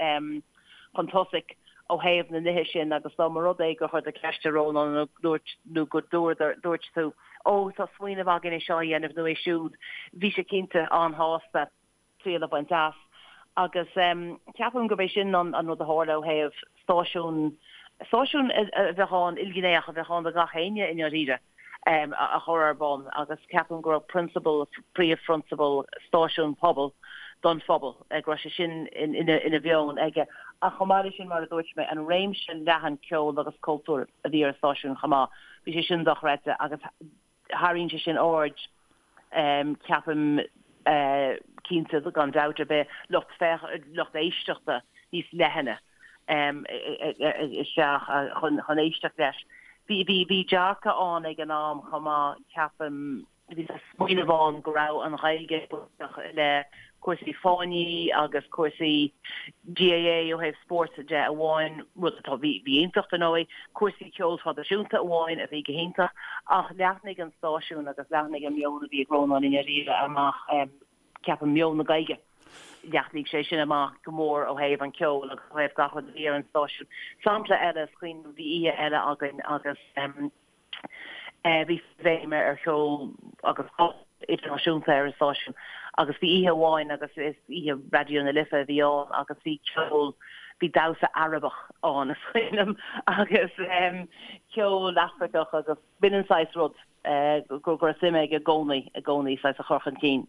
chun tosaigh ó thaobh na nithe sin agus dá mba rud é gur chuir tú ceist ar Rónán nó dúirt nó go dúirt tú, ó tá smaoineamh againn é seo a dhéanamh nó é siúd, bhí sé cinnte an-shásta. triail a bhaint as. Agus ceapaim gurb é sin an rud a tharla ó thaobh stáisiún, stáisiún a bheadh ann, ilghnéitheach, a bheadh ann do gach éinne i ndáiríre, a chur ar bun agus ceapaim go raibh prionsabal, príomhphrionsabal stáisiún pobail don phobal, go raibh sé sin ina mheon aige. Ach chomh maith leis sin, mar a dúirt mé, an réimse leathan ceoil agus cultúir a bhí ar an stáisiún chomh maith, bhí sé sin dochreidte agus tharraing sé sin aird, ceapaim, cinnte, gan dabht ar bith, lucht féach, lucht éisteachta níos leithne isteach chun éisteacht leis. Bhí, bhí, bhí dearcadh ann ag an am chomh maith, ceapaim, bhí smaoineamh ann go raibh an Ghaeilge bainteach le cúrsaí fáinní agus cúrsaí GAA ó thaobh spóirt de amháin, rud atá, bhí, bhí iontach dar ndóigh, cúrsaí ceoil traidisiúnta amháin a bhí go hiontach, ach leathnaigh an stáisiún agus leathnaigh an meon a bhí ag Rónán i ndáiríre amach, ceapaim, meon na Gaeilge, leathnaigh sé sin amach go mór ó thaobh an ceoil agus ó thaobh gach rud a bhí ar an stáisiún. Sampla eile, is cuimhin liom, bhí oíche eile againn agus. Bhí béim ar cheol agus pop idirnáisiúnta ar an stáisiún agus bhí oíche amháin agus is oíche Raidió na Life a bhí ann agus bhí ceol, bhí damhsa Arabach ann is cuimhin liom agus ceol Afracach agus b'in an saghas rud go raibh suim aige i gcónaí, i gcónaí saghas a chur chun cinn.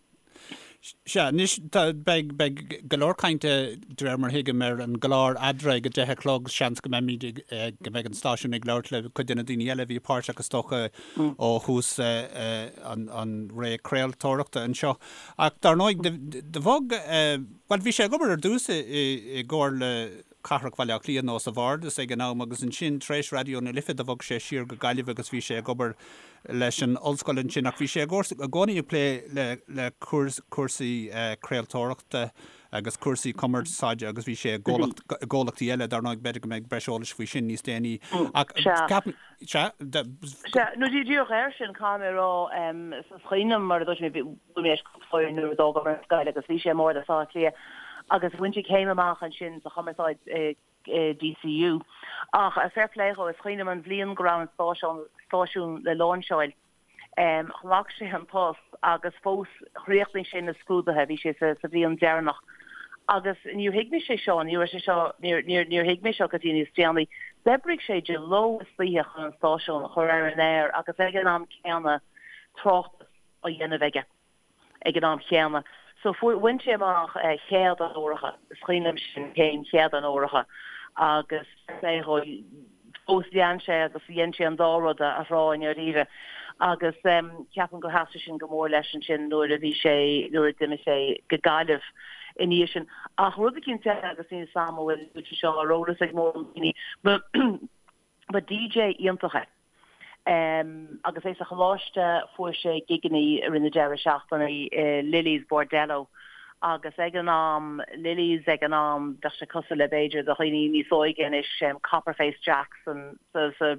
Sea, anois tá, beidh, beidh go leor cainte, de réir mar a thuigim, ar an gclár Eadrainn ag a deich a chlog. Seans go mbeimid ag, go mbeidh an stáisiún ag labhairt le cuid de na daoine eile a bhí páirteach, is dócha, ó thús an, an ré craoltóireachta anseo. Ach dar ndóigh, do, do bhog, bhuel, bhí sé ag obair ar dtús i, i, i gComhairle Cathrach Bhaile Átha Cliath nó sa Bhardas ag an am agus ansin tar éis Raidió na Life do bhog sé siar go Gaillimh agus bhí sé ag obair leis an ollscoil ansin ach bhí sé i gcónaí ag plé le cúrsaí craoltóireachta agus cúrsaí cumarsáide agus bhí sé i gcomhlachtaí eile, dar ndóigh b'fhéidir go mbeidh breis eolais faoi sin níos déanaí ach ceapaim, sea, Sea, nó díreach air sin caithfidh mé a rá, is cuimhin liom mar a dúirt mé, bhí mé leis cúpla uair nuair a d'fhágamar an scoil agus bhí sé i mBardas Átha Cliath agus bhain sé céim amach ansin sa chumarsáid i DCU. Ach fair play dhó, is cuimhin liom an bhliain go raibh an stáisiún le láinseáil, ghlac sé an post agus fós chríochnaigh sé na scrúduithe, bhí sé sa bhliain deireanach. Agus níor thuig mise é seo, ní raibh sé seo, níor, níor, níor thuig mé seo go dtí níos déanaí. D'oibrigh sé de ló is d'oíche chun an stáisiún a chur ar an aer agus ag an am céanna tráchtas á dhéanamh aige. ag an am chéanna. So fuair, bhain sé amach chéad onóracha, is cuimhin liom sin, céim chéad onóracha agus fair play dhó, fós lean sé agus dhein sé an dá rud a thrá i ndáiríre agus ceapaim gur sheas sin go mór leis ansin nuair a bhí sé, nuair a d'imigh sé go Gaillimh i ndiaidh sin. Ach rud eicínt eile agus níl 'fhios a'm an bhfuil sé seo ar eolas ag mórán daoine, but. Ba DJ iontach é. Agus é sa choláiste fuair sé gigeannaí i rith na deireadh seachtaine i Lily's Bordello agus ag an am, Lily's ag an am, bheadh sé cosúil le b'fhéidir do dhaoine níos óige anois, Copperface Jacks sa, sa,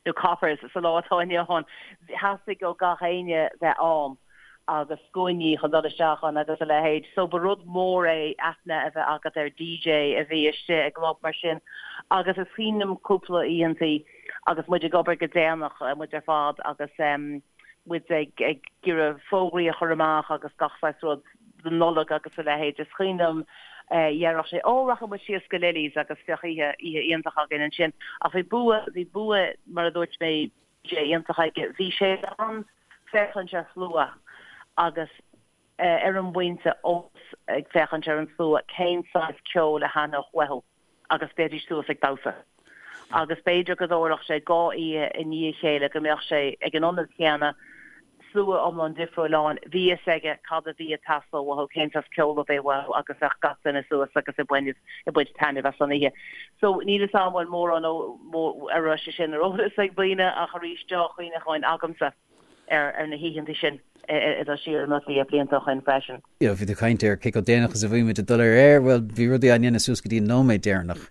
nó Coppers sa lá atá inniu ann. Theastaigh ó gach éinne bheith ann agus scuainí chun dul isteach ann agus a leithéid. So ba rud mór é aithne a bheith agat ar DJ a bhí istigh i gclub mar sin agus is cuimhin liom cúpla oícheantaí agus muid ag obair go déanach, muid ar fad agus muid ag ag iarraidh fógraí a chur amach agus gach saghas rud don Nollaig agus a leithéid. Is cuimhin liom dhéarfadh sé, 'Ó, rachaidh muid síos go Lily's agus bheadh oíche, oíche iontach againn ansin. Ach bhí bua, bhí bua, mar a dúirt mé, DJ iontach aige. Bhí sé in ann féachaint ar shlua agus ar an bpointe eolas ag féachaint ar an slua cén saghas ceoil a thaitneodh uathu agus bheidís suas ag damhsa. Agus b'fhéidir go dtarlódh sé dhá oíche i ndiaidh a chéile go mbeadh sé ag an ionad chéanna, slua iomlán difriúil ann, bhí fhios aige cad a bhí ag teastáil uathu, cén saghas ceoil a bhí uathu agus bheadh gach duine suas agus ag baint ag baint taitneamh as an oíche. So níl fhios a'm bhfuil mórán ó a raibh sé sin ar eolas ag daoine ach arís deá-chuimhneacháin agamsa ar ar na hoícheanta sin ag dul siar i mBaile Átha Cliath blianta ó shin freisin. You know, bhí tú ag caint ar cé chomh déanach is a bhí muid ag dul ar aer, bhuel bhí rudaí á ndéanamh suas go dtí an nóiméad deireanach.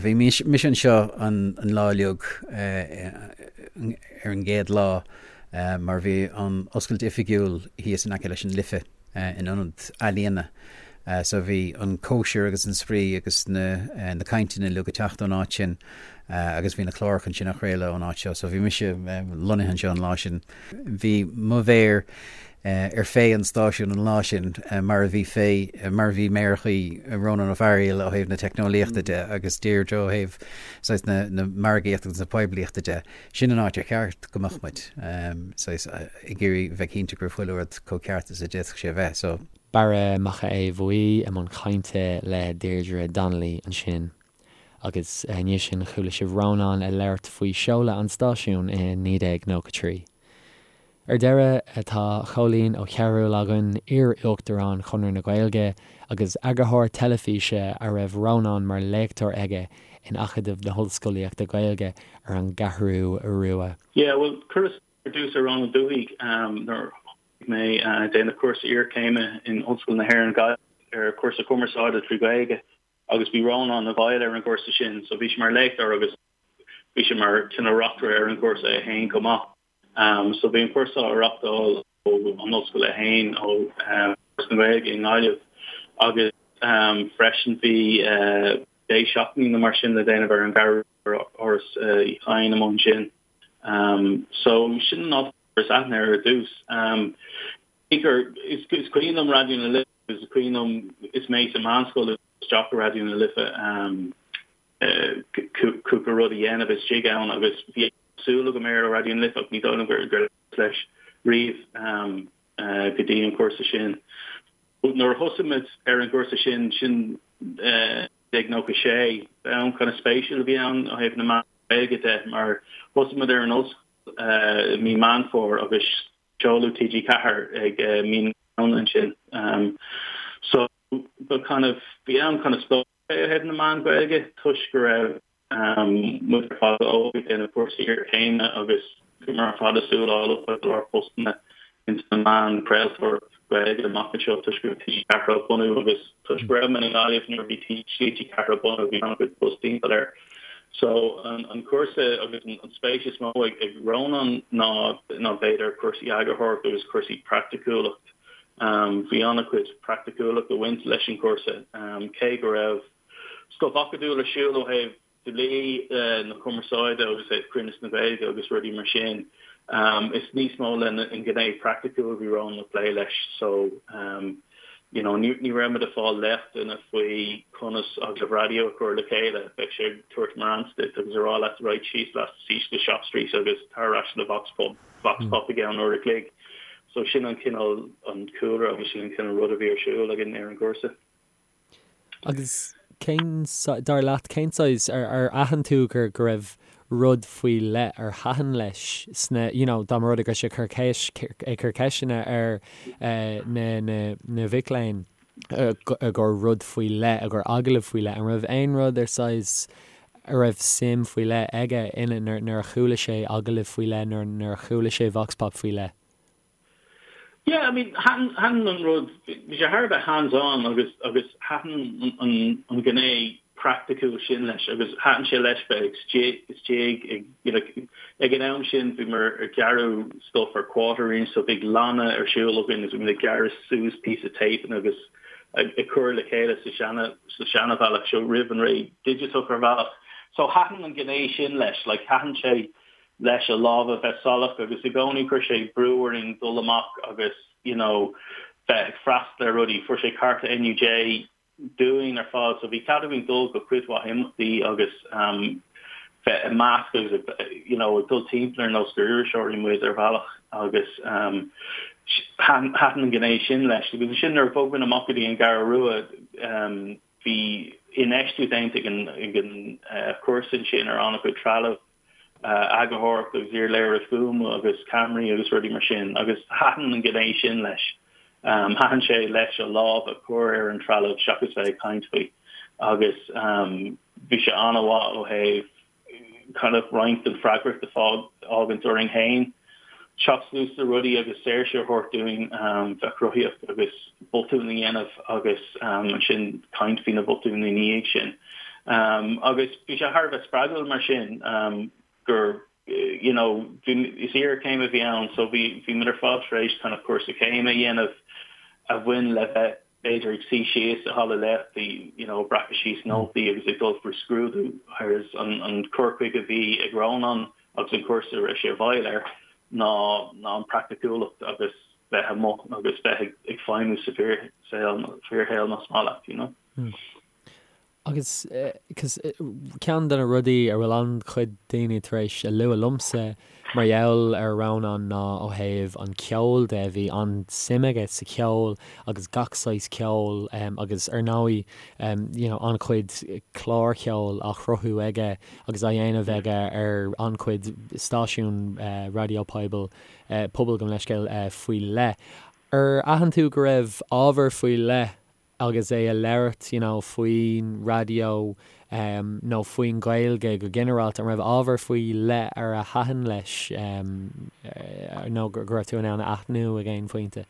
Bhí mise anseo an lá uilig ar an gcéad lá mar bhí an oscailt oifigiúil thíos in aice leis an Life in ionad ealaíona. So bhí an cóisir agus an spraoi agus na na cainteanna uilig ag teacht ón áit sin agus bhí na cláracha ansin á chraoladh ón áit seo. So bhí mise lonnaithe anseo an lá sin. Bhí mo mhéar ar féith an stáisiúin an lá sin mar a bhí fé mar a bhí méarachaí Rónán Ó Fearghaíl ó thaobh na teicneolaíochta de agus Deirdre ó thaobh saghas na na margaíochta agus na poiblíochta de. Sin an áit ar cheart go mbeadh muid, saghas, ag iarraidh bheith cinnte go raibh chuile rud chomh ceart is a d'fhéadfadh sé a bheith. So. Barra Mac Aodha Bhuí i mbun cainte le Deirdre Donnelly ansin. Agus i ndiaidh sin chuala sibh Rónán ag labhairt faoi seoladh an stáisiúin i 1993. Ar deireadh, tá Cóilín Ó Cearúil againn, iar-Uachtarán Chonradh na Gaeilge agus eagarthóir teilifíse a raibh Rónán mar léachtóir aige in Acadamh na hOllscolaíochta Gaeilge ar an gCeathrú Rua. Yeah, bhuel, chuireas ar dtús ar Rónán Ó Dubhthaigh nuair a thosaigh mé ag déanamh cúrsa iarchéime in Ollscoil na hÉireann Gaillimh ar chúrsa cumarsáide trí Ghaeilge agus bhí Rónán i bhfeighil ar an gcúrsa sin so bhí sé mar léachtóir agus bhí sé mar cineál reachtaire ar an gcúrsa é féin chomh maith. So bhí an cúrsa á reachtáil ó an ollscoil é féin, ó Fhoras na Gaeilge i nGaillimh agus freisin bhí deich seachtainí nó mar sin le déanamh ar an gCeathrú Rua, Áras Uí Chadhain amuigh ansin. So sin an áit a gcuireas aithne air ar dtús. Is cuimhin liom Raidió na Life, is cuimhin liom is mé sa mheánscoil isteach i Raidió na Life cúpla rud a dhéanamh istigh ann agus bhí súil agam air ó Raidió na Life ach ní dóigh liom gur labhras leis riamh go dtí an cúrsa sin. Nuair a thosaigh muid ar an gcúrsa sin, sin 1996, am kind of spéisiúil a bhí ann ó thaobh na meán Gaeilge de mar thosaigh muid ar an ollscoil i mí Meán Fómhair agus seoladh TG4 ag mí na Samhna ansin. So ba kind of bhí am kind of spóic é ó thaobh na meán Gaeilge toisc go raibh muid ar fad óg ag déanamh cúrsaí iarchéime agus bhíomar ar fad ag súil le fáil go leor postanna ins na meáin craoltóireacht Gaeilge amach anseo toisc go raibh TG4 á bunú agus toisc go raibh mé i nGaillimh nuair a bhí TG4 á bunú bhí an-chuid buzz timpeall air. So an cúrsa agus an spéis is mó ag Rónán ná ná b'fhéidir cúrsaí eagarthóireachta agus cúrsaí praiticiúlacht. Bhí an-chuid praiticiúlacht ag baint leis an chúrsa cé go raibh Stuif acadúil ar siúl ó thaobh dlí na cumarsáide agus ó thaobh cruinneas na Gaeilge agus rudaí mar sin. Is níos mó le an ghné praiticiúil a bhí Rónán ag plé leis so you know ní ní raibh muid ag fáil léachtanna faoi conas agallamh raidió a chur le chéile. Bheadh sé ag tabhairt morans duit agus ag rá leat right síos leat síos go Shop Street agus tar ar ais le vox pop vox pop i gceann uair a chloig. So sin an cineál an cúlra agus sin an cineál rud a bhí ar siúl againn ar an gcúrsa. Agus cén, dar leat, cén saghas, ar, ar aithin tú gur, go raibh rud faoi leith ar thaitin leis sna, you know, dá mba rud é go raibh sé ag cur ceist, ag cur ceisteanna ar na, na, na mhic léinn i gcomhair rud faoi leith, i gcomhair agallamh faoi leith, an raibh aon rud ar saghas. A raibh suim faoi leith aige ina nuair a chuala sé agallamh faoi leith nó nuair a chuala sé vox pop faoi leith? Yeah, I mean, thaitin, thaitin an rud, bhí sé thar a bheith hands on agus, agus thaitin an, an ghné praiticiúil sin leis agus thaitin sé leis bheith istigh, istigh ag, you know, ag an am sin bhíomar ag gearradh stuff ar quarter inch so bhí lanna ar siúl againn agus bhí muid ag gearradh suas píosa tape agus ag, ag cur le chéile sa seana, sa seanabhealach seo roimh an ré digiteach ar bhealach. So thaitin an ghné sin leis, like thaitin sé leis a lámha bheith salach agus i gcónaí chuir sé brú orainn dul amach agus you know bheith ag freastal ar rudaí. Fuair sé cárta NUJ dúinn ar fad so bhí cead againn dul go cuid mhaith imeachtaí agus um bheith i measc agus you know ag dul timpeall ar nós gur iriseoirí muid ar bhealach agus um thaitin an ghné sin leis. Agus ansin nuair a bhog muid amach go dtí an gCeathrú Rua um bhí infheistiú déanta ag an ag an chúrsa ansin ar an-chuid trealamh eagarthóireacht agus iarléiriú fuaime agus ceamaraí agus rudaí mar sin agus thaitin an ghné sin leis. Thaitin sé leis a lámh a chur ar an trealamh seachas bheith ag caint faoi agus bhí sé an-mhaith ó thaobh kind of roinnt den freagracht a fhágaint orainn féin teacht suas le rudaí agus saoirse a thabhairt dúinn bheith cruthaíoch agus botúin a dhéanamh agus ansin caint faoi na botúin ina dhiaidh sin. Agus bhí sé thar a bheith spreagúil mar sin gur you know bhí is iarchéim a bhí ann so bhí bhí muid ar fad tar éis kind of cúrsa céime a dhéanamh a bhain le bheith b'fhéidir ag suí síos i halla léachtaí you know ag breacadh síos nótaí agus ag dul faoi scrúdú whereas an an cur chuige a bhí ag Rónán agus an cúrsa a raibh sé i bhfeighil air ná ná an praiticiúlacht agus bheith amuigh agus bheith ag ag feidhmiú sa bhfíorshaol fíorshaol más maith leat you know. Mm. Agus ceann de na rudaí a bhfuil an-chuid daoine tar éis a lua liomsa mar gheall ar Rónán ná ó thaobh an cheoil de, bhí an-suim aige sa cheol agus gach saghas ceoil agus ar ndóigh you know an-chuid clár cheoil á chruthú aige agus á dhéanamh aige ar an-chuid stáisiún raidió poibil, pobail gabh mo leithscéal, faoi leith. Ar aithin tú go raibh ábhar faoi leith agus é a labhairt you know faoin raidió nó faoin Ghaeilge go ginearálta, an raibh ábhar faoi leith ar a thaitin leis nó go raibh tú in ann a aithniú ag aon phointe?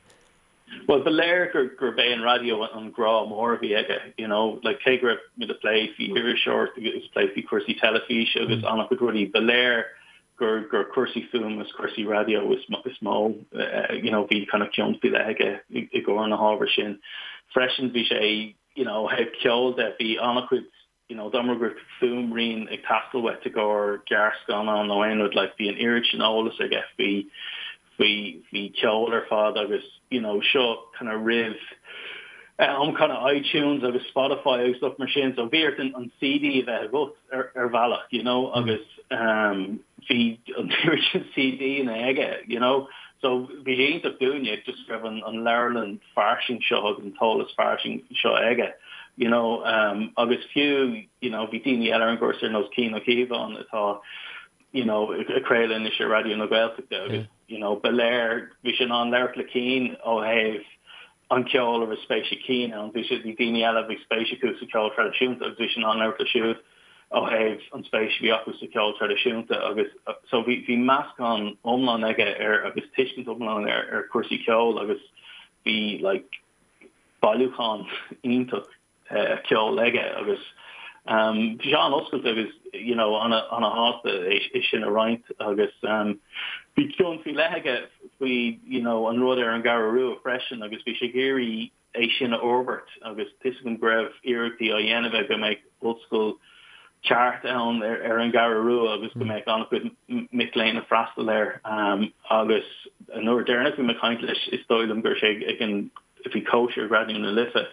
Bhuel, ba léir gur gurb é an raidió an grá mór a bhí aige, you know, like cé go raibh muid ag plé faoi iriseoireacht agus ag plé faoi chúrsaí teilifíse agus an-chuid rudaí, ba léir gur gur cúrsaí fuaime is cúrsaí raidió is is mó you know bhí kind of cion faoi leith aige i gcomhair na hábhair sin. Freisin bhí sé you know ó thaobh ceoil de bhí an-chuid you know dá mba go raibh fuaimrian ag teastáil uait i gcomhair gearrscannán nó aon rud like bhí an oiread sin eolas aige faoi faoi faoi cheol ar fad agus you know seo kind of roimh am kind of iTunes agus Spotify agus stuff mar sin so bhí ort an, an CD a bheith agat ar, ar bhealach you know agus um, bhí an oiread sin CD-anna aige you know so bhí sé iontach dúinne just raibh an, an leabharlann fairsing seo agus an t-eolas fairsing seo aige you know um, agus fiú you know bhí daoine eile ar an gcúrsa ar nós Cian Ó Cíobháin atá you know, ag craoladh anois ar Raidió na Gaeltachta agus, you know, ba léir, bhí sé in ann labhairt le Cian ó thaobh an ceol a raibh spéis ag Cian ann. Bhí sé, bhí daoine eile a bhí spéis acu sa cheol traidisiúnta agus bhí sé in ann labhairt leo siúd ó thaobh an spéis a bhí acu sa cheol traidisiúnta agus so bhí, bhí meascán iomlán aige ar agus tuiscint iomlán ar, ar chúrsaí ceoil agus bhí like bailiúchán iontach ceoil aige agus bhí sé an-oscailte agus you know an-shásta é sin a roinnt agus bhí cion faoi leith aige faoi you know an rud ar an gCeathrú Rua freisin agus bhí sé ag iarraidh é sin a fhorbairt agus tá 'fhios agam go raibh iarrachtaí á dhéanamh aige go mbeadh ollscoil ceart ann ar an gCeathrú Rua agus go mbeadh an-chuid mic léinn ag freastal air agus an uair deireanach bhí mé ag caint leis is dóigh liom go raibh sé ag an bhí cóisir ag Raidió na Life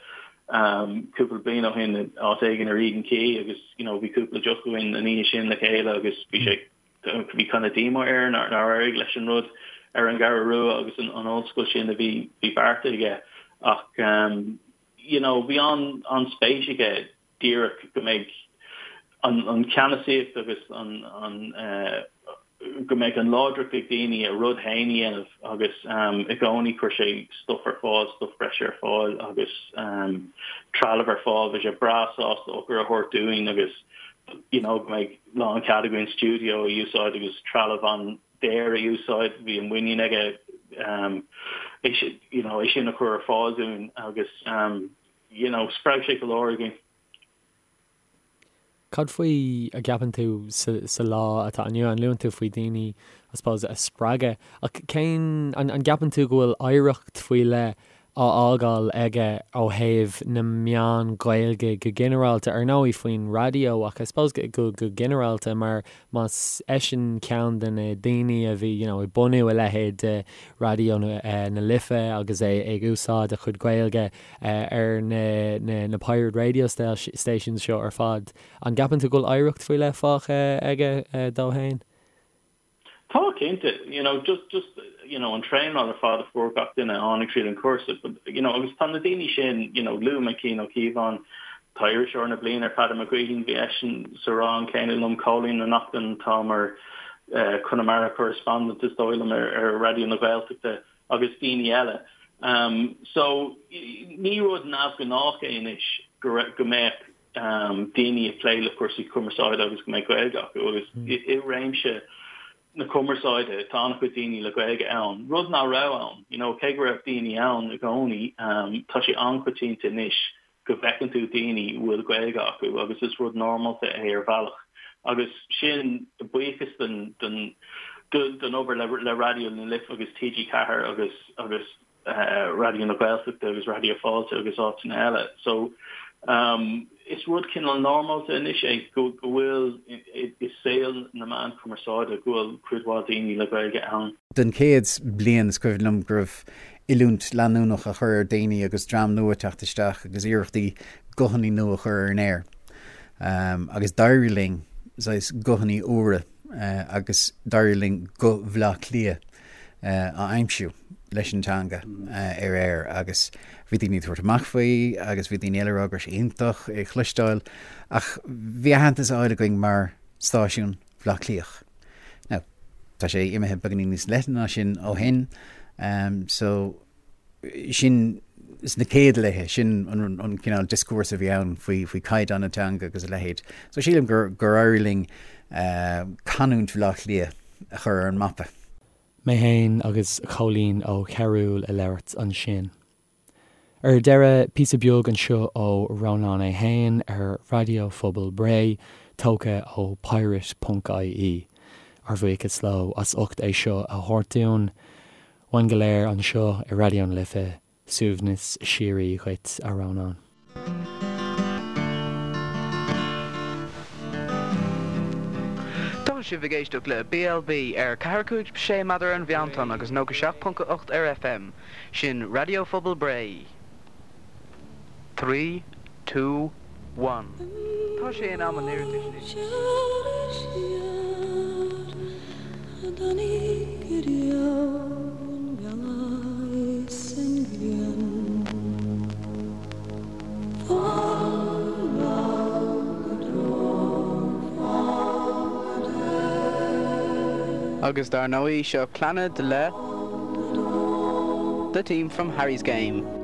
cúpla bliain ó shin áit éigin ar Eden Quay agus you know bhí cúpla deoch againn an oíche sin le chéile agus bhí sé bhí kind of díomá air nár éirigh leis an rud ar an gCeathrú Rua agus an, an ollscoil sin a bhí bhí beartaithe aige ach um, you know bhí an an spéis aige díreach go mbeidh an an ceannasaíocht agus an an uh, go mbeadh an láidreacht ag daoine a rud féin a dhéanamh agus i gcónaí chuir sé stuff ar fáil, stuff breise ar fáil agus trealamh ar fáil. Bhí sé breá sásta eochair a thabhairt dúinn agus. you know, go mbeidh lánchead againn stiúideo a úsáid agus trealamh an-daor a úsáid. Bhí an muinín aige é sin, you know, é sin a chur ar fáil dúinn agus, you know, spreag sé go leor againn. Cad faoi a gceapann tú sa lá atá inniu ann? Luann tú faoi daoine, I suppose, a spreagadh ach cén, an gceapann tú go bhfuil oidhreacht faoi leith á fhágáil aige ó thaobh na meán Gaeilge go ginearálta, ar ndóigh faoin raidió ach I suppose go ginearálta mar más eisean ceann de na daoine a bhí you know ag bunú a leithéid de Raidió na Life agus é ag úsáid a chuid Gaeilge ar na na pirate radio stations seo ar fad. An gceapann tú go bhfuil oidhreacht faoi leith fágtha aige dó fhéin? Tá, cinnte. You know, just, just, you know, an traenáil ar fad a fuair gach duine a tháinig tríd an cúrsa, but, you know, agus tá na daoine sin, you know, luaigh mé Cian Ó Cíobháin, tá Iriseoir na Bliana ar Peadar Mac Gaoithín, bhí eisean sa rang céanna liom, Cóilín Ó Neachtain, atá mar eh, Conamara correspondent is dóigh liom ar, ar Raidió na Gaeltachta agus daoine eile. Um, so, ní rud neamhghnách é anois go, go mbeadh daoine ag plé le cúrsaí cumarsáide agus go mbeadh Gaeilge acu agus i réimse na cumarsáide tá an-chuid daoine le Gaeilge ann, rud nach raibh ann, you know, cé go raibh daoine ann i gcónaí, tá sé an-choitianta anois go bhfeiceann tú daoine a bhfuil Gaeilge acu agus is rud normálta é ar bhealach agus sin buíochas don don don obair le le Raidió na Life agus TG4 agus agus Raidió na Gaeltachta agus Raidió Fáilte agus áiteanna eile. So is rud cineál normálta anois é go bhfuil i saol na meán cumarsáide go bhfuil cuid mhaith daoine le Gaeilge ann. Den chéad bliain is cuimhin liom go raibh oiliúint leanúnach á chur ar daoine agus dream nua ag teacht isteach agus iarrachtaí guthanna nua a chur ar an aer. Agus d'éirigh linn saghas guthanna úra agus d'éirigh linn guth Bhaile Átha Cliath a aimsiú leis an teanga ar aer agus bhí daoine ag tabhairt amach faoi agus bhí daoine eile ag rá go raibh sé iontach é a chloisteáil ach bhí aitheantas á fháil againn mar stáisiún Bhaile Átha Cliath. Now, tá sé imithe beagáinín níos leithne ná sin ó shin so sin sna céad laethe, sin an cineál dioscúrsa a bhí ann faoi faoi caighdeán na teanga agus a leithéid. So sílim gur gur éirigh linn canúint Bhaile Átha Cliath a chur ar an mapa. Mé fhéin agus Cóilín Ó Cearúil ag labhairt ansin. Ar deireadh, píosa beag anseo ó Rónán é fhéin ar Raidió Phobal Bhré, tógtha ó pirate ponc ie. Ár bhuíochas leo as ucht é seo a thabhairt dúinn. Uainn go léir anseo i Raidió na Life, suaimhneas síoraí dhuit, a Rónáin. Tá sibh ag éisteacht le BLB ar 4, 5, 6 méadar ar an mheántonn agus 97.8 ar FM. Sin Raidió Phobal Bré. 3, 2, 1. Tá sé in am an iarratais anois. Agus dar ndóigh, seo Clannad le The Team from Harry's Game.